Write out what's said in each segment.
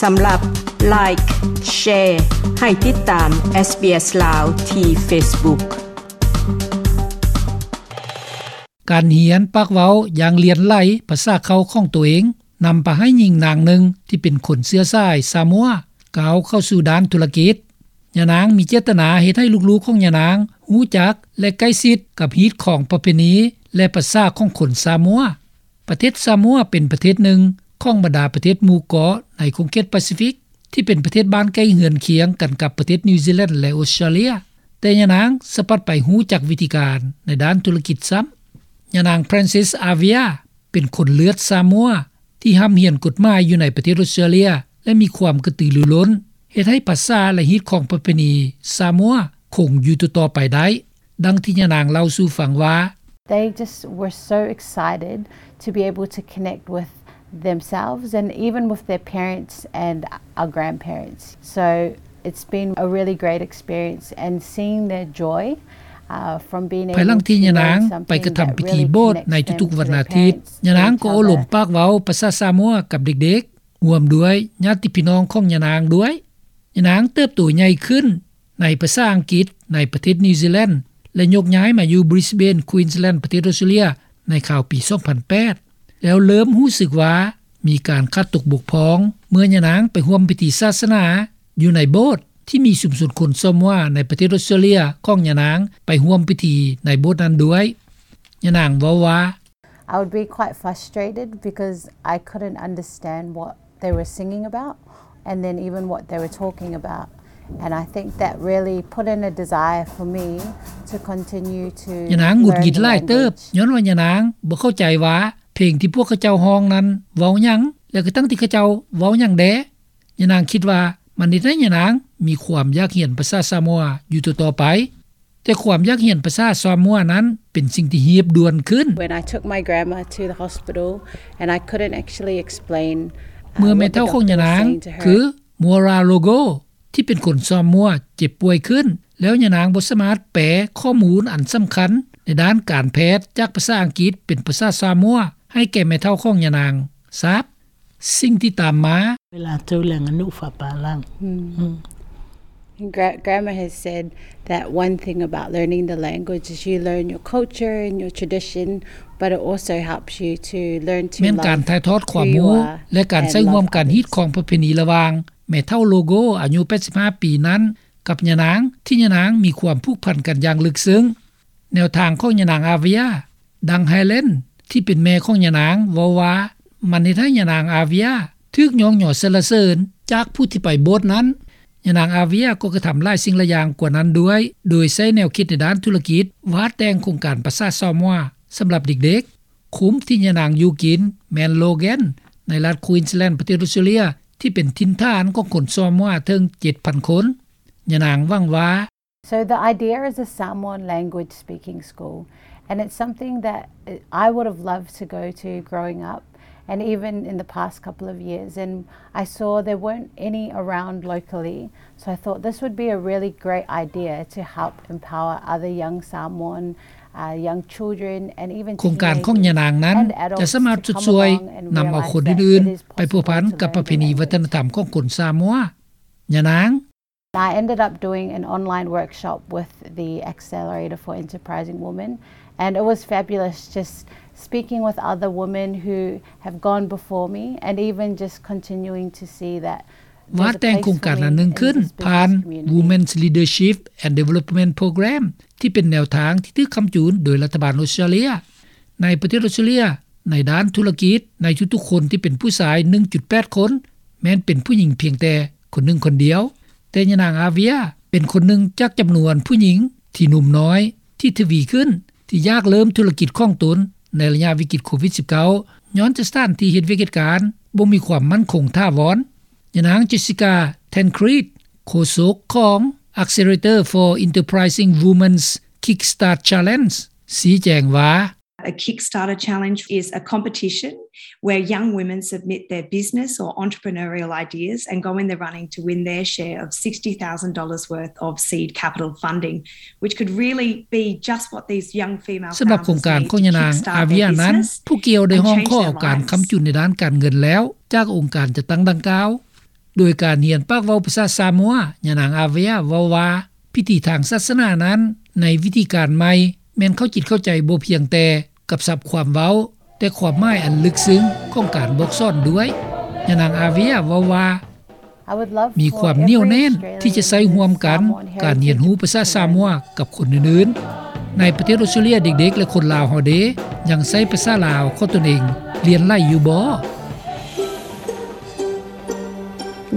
ສຳລັບ Like, Share ໃຫ້ຕິດຕາມ SBS ລາວ ທີ່ Facebook. ການຮຽນປາກເວົ້າຢ່າງຫຼຽນໄຫຼພາສາເກົ່າຂອງໂຕເອງ ນຳພາໃຫ້ຍິງນາງໜຶ່ງທີ່ເປັນຄົນເຊື້ອສາຍຊາມົວ ກ້າວເຂົ້າສູ່ດ້ານທຸລະກິດ. ຍານາງມີເຈດຕະນາເຮັດໃຫ້ລູກໆຂອງຍານາງຮູ້ຈັກ ແລະ ໃກ້ຊິດກັບຮີດຄອງປະເພນີ ແລະ ພາສາຂອງຄົນຊາມົວ. ປະເທດຊາມົວເປັນປະເທດໜຶ່ງຂອງບັນດາປະເທດໝູ່ເກາະໃນຂົງເຂດປາຊີຟິກ ທີ່ເປັນປະເທດບ້ານໃກ້ເຮືອນຄຽງກັນກັບປະເທດນິວຊີແລນ ແລະ ອົດສະຕຣາເລຍ, ແຕ່ຍານາງສະພັດໄປຮູ້ຈັກວິທີການໃນດ້ານທຸລະກິດຊ້ຳ. ຍານາງ Frances Avia ເປັນຄົນເລືອດຊາມົວ ທີ່ຮ່ຳຮຽນກົດໝາຍຢູ່ໃນປະເທດອົດສະຕຣາເລຍ ແລະ ມີຄວາມກະຕືລືລົ້ນ ເຮັດໃຫ້ພາສາ ແລະ ຮີດຄອງປະເພນີຊາມົວຄົງຢູ່ຕໍ່ໆໄປໄດ້. ດັ່ງທີ່ຍານາງເລົ່າສູ່ຟັງວ່າ, They just were so excited to be able to connect with themselves and even with their parents and our grandparents. So it's been a really great experience and seeing their joy, uh, from being able to learn something that really connects them to their parents and their grandparents. ພາຍຫຼັງທີ່ຍານາງໄປກະທຳພິທີໂບດໃນທຸກໆວັນອາທິດ, ຍານາງກໍໂອ້ລົມປາກເວົ້າພາສາຊາມົວກັບເດັກໆ ຮ່ວມດ້ວຍຍາດຕິພີ່ນ້ອງຂອງຍານາງດ້ວຍ. ຍານາງເຕີບໂຕໃຫຍ່ຂຶ້ນໃນພາສາອັງກິດໃນປະເທດນິວຊີແລນ ແລະ ຍົກຍ້າຍມາຢູ່ Brisbane Queensland ປະເທດອົດສະຕຣາເລຍໃນຄາວປີສອງພັນແປດ ແລ້ວເລີ່ມຮູ້ສຶກວ່າມີການຂາດຕົກບົກຜ່ອງ ເມື່ອຍານາງໄປຮ່ວມພິທີສາສະໜາຢູ່ໃນໂບດທີ່ມີຊຸມຊົນຄົນຊາມົວໃນປະເທດອົດສະຕຣາເລຍຂອງຍານາງໄປຮ່ວມພິທີໃນໂບດນັ້ນດ້ວຍ. ຍານາງເວົ້າວ່າ, I would be quite frustrated because I couldn't understand what they were singing about and then even what they were talking about. And I think that really put in a desire for me to continue to learn the language. ຍານາງຫງຸດຫງິດຫຼາຍເຕີບ ຍ້ອນວ່າຍານາງບໍ່ເຂົ້າໃຈວ່າເພງທີ່ພວກເຂົາເຈົ້າຮ້ອງນັ້ນເວົ້າຫຍັງ ແລະ ກະທັງທີ່ເຂົາເຈົ້າເວົ້າຫຍັງແດ່. ຍານາງຄິດວ່າມັນເຮັດໃຫ້ຍານາງມີຄວາມຢາກຮຽນພາສາຊາມົວຢູ່ຕໍ່ໆໄປ. ແຕ່ຄວາມຢາກຮຽນພາສາຊາມົວນັ້ນເປັນສິ່ງທີ່ຮີບດ່ວນຂຶ້ນ. When I took my grandma to the hospital and I couldn't actually explain, uh, what the doctor was saying to her. ເມື່ອແມ່ເຖົ້າຂອງຍານາງ ຄື Moura Logo ທີ່ເປັນຄົນຊາມົວເຈັບປ່ວຍຂຶ້ນ ແລ້ວຍານາງບໍ່ສາມາດແປຂໍ້ມູນອັນສຳຄັນໃນດ້ານການແພດຈາກພາສາອັງກິດເປັນພາສາຊາມົວໃຫ້ແກ່ແມ່ເຖົ້າຂອງຍານາງຊາບ. ສິ່ງທີ່ຕາມມາ. Gra-, Grandma has said that one thing about learning the language is you learn your culture and your tradition, but it also helps you to learn to love who you are and love others. ແມ່ນການຖ່າຍທອດຄວາມຮູ້ ແລະ ການໃຊ້ຮ່ວມກັນຮີດຄອງປະເພນີລະຫວ່າງແມ່ເຖົ້າໂລໂກ ອາຍຸແປດສິບຫ້າປີນັ້ນ ກັບຍານາງ ທີ່ຍານາງມີຄວາມຜູກພັນກັນຢ່າງເລິກເຊິ່ງ. ແນວທາງຂອງຍານາງ ອາເວຍ ດັ່ງ Helen ທີ່ເປັນແມ່ຂອງຍານາງເວົ້າວ່າ ມັນເຮັດໃຫ້ຍານາງ ອາເວຍ ຖືກຍ້ອງຍໍສັນລະເສີນຈາກຜູ້ທີ່ໄປໂບດນັ້ນ. ຍານາງ ອາເວຍ ກໍກະທຳຫຼາຍສິ່ງຫຼາຍຢ່າງກວ່ານັ້ນດ້ວຍ ໂດຍໃຊ້ແນວຄິດໃນດ້ານທຸລະກິດ ວາດແຕ່ງໂຄງການພາສາຊາມົວສຳລັບເດັກໆ. ຄຸ້ມທີ່ຍານາງຢູ່ກິນແມ່ນ Logan ໃນລັດ Queensland ປະເທດອົດສະຕຣາເລຍ ທີ່ເປັນຖິ່ນຖານຂອງຄົນຊາມົວເຖິງເຈັດພັນຄົນ. ຍານາງຫວັງວ່າ So the idea is a Samoan language speaking school, and it's something that I would have loved to go to growing up, and even in the past couple of years, and I saw there weren't any around locally, so I thought this would be a really great idea to help empower other young Samoan, uh, young children and even teenagers and adults to come along and realize that it is possible to learn the language. ໂຄງການຂອງຍານາງນັ້ນຈະສາມາດຊົດຊ່ວຍນຳເອົາຄົນອື່ນໆໄປພົວພັນກັບປະເພນີວັດທະນະທຳຂອງຄົນຊາມົວ. ຍານາງ I ended up doing an online workshop with the Accelerator for Enterprising Women, and it was fabulous just speaking with other women who have gone before me and even just continuing to see that there's a place for me in this business community. ວາດແຕ່ງໂຄງການອັນໜຶ່ງຂຶ້ນ ຜ່ານ Women's Leadership and Development Program ທີ່ເປັນແນວທາງທີ່ຖືກຄ້ຳຈູນໂດຍລັດຖະບານອົດສະຕຣາເລຍ. ໃນປະເທດອົດສະຕຣາເລຍ ໃນດ້ານທຸລະກິດ ໃນທຸກໆຄົນທີ່ເປັນຜູ້ຊາຍໜຶ່ງຈຸດແປດຄົນ ແມ່ນເປັນຜູ້ຍິງພຽງແຕ່ຄົນໜຶ່ງຄົນດຽວ. ແຕ່ຍານາງ ອາເວຍ ເປັນຄົນໜຶ່ງຈາກຈຳນວນຜູ້ຍິງທີ່ໜຸ່ມນ້ອຍ ທີ່ທະວີຂຶ້ນ ທີ່ຢາກເລີ່ມທຸລະກິດຂອງຕົນໃນໄລຍະວິກິດໂຄວິດສິບເກົ້າ ຍ້ອນຈາກສະຖານທີ່ເຮັດວຽກເຮັດການບໍ່ມີຄວາມໝັ້ນຄົງຖາວອນ. ຍານາງ Jessica Tancreed ໂຄສົກຂອງ Accelerator for Enterprising Women's Kickstart Challenge ຊີ້ແຈງວ່າ, A Kickstarter Challenge is a competition where young women submit their business or entrepreneurial ideas and go in the running to win their share of sixty thousand dollars worth of seed capital funding, which could really be just what these young female founders need to kickstart their business and change their lives. ສຳລັບໂຄງການຂອງຍານາງ ອາເວຍ ນັ້ນ ຜູ້ກ່ຽວໄດ້ຮ້ອງຂໍເອົາການຄ້ຳຈຸນໃນດ້ານການເງິນແລ້ວ ຈາກອົງການຈັດຕັ້ງດັ່ງກ່າວ. ໂດຍການຮຽນປາກເວົ້າພາສາຊາມົວ, ຍານາງ ອາເວຍາ ເວົ້າວ່າ ພິທີທາງສາສະໜານັ້ນ ໃນວິທີການໃໝ່ ແມ່ນເຂົ້າຈິດເຂົ້າໃຈບໍ່ພຽງແຕ່ກັບສັບຄວາມເວົ້າ, ແຕ່ຄວາມໝາຍອັນເລິກເຊິ່ງຂອງການບອກສອນດ້ວຍ. ຍານາງ ອາເວຍາ ເວົ້າວ່າ ມີຄວາມໜຽວແໜ້ນທີ່ຈະໃຊ້ຮ່ວມກັນ ການຮຽນຮູ້ພາສາຊາມົວກັບຄົນອື່ນໆ. ໃນປະເທດອອສເຕຣເລັຽ ເດັກໆ ແລະ ຄົນລາວເຮົາເດ ຍັງໃຊ້ພາສາລາວຂອງຕົນເອງຫຼຽນໄຫຼຢູ່ບໍ່?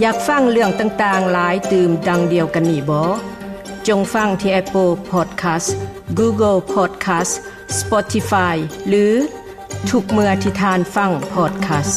ຢາກຟັງເລື່ອງຕ່າງໆຫຼາຍຕື່ມດັ່ງດຽວກັນນີ້ບໍ່? ຈົ່ງຟັງທີ່ Apple Podcast, Google Podcast, Spotify ຫຼື ທຸກເມື່ອທີ່ທ່ານຟັງ podcast.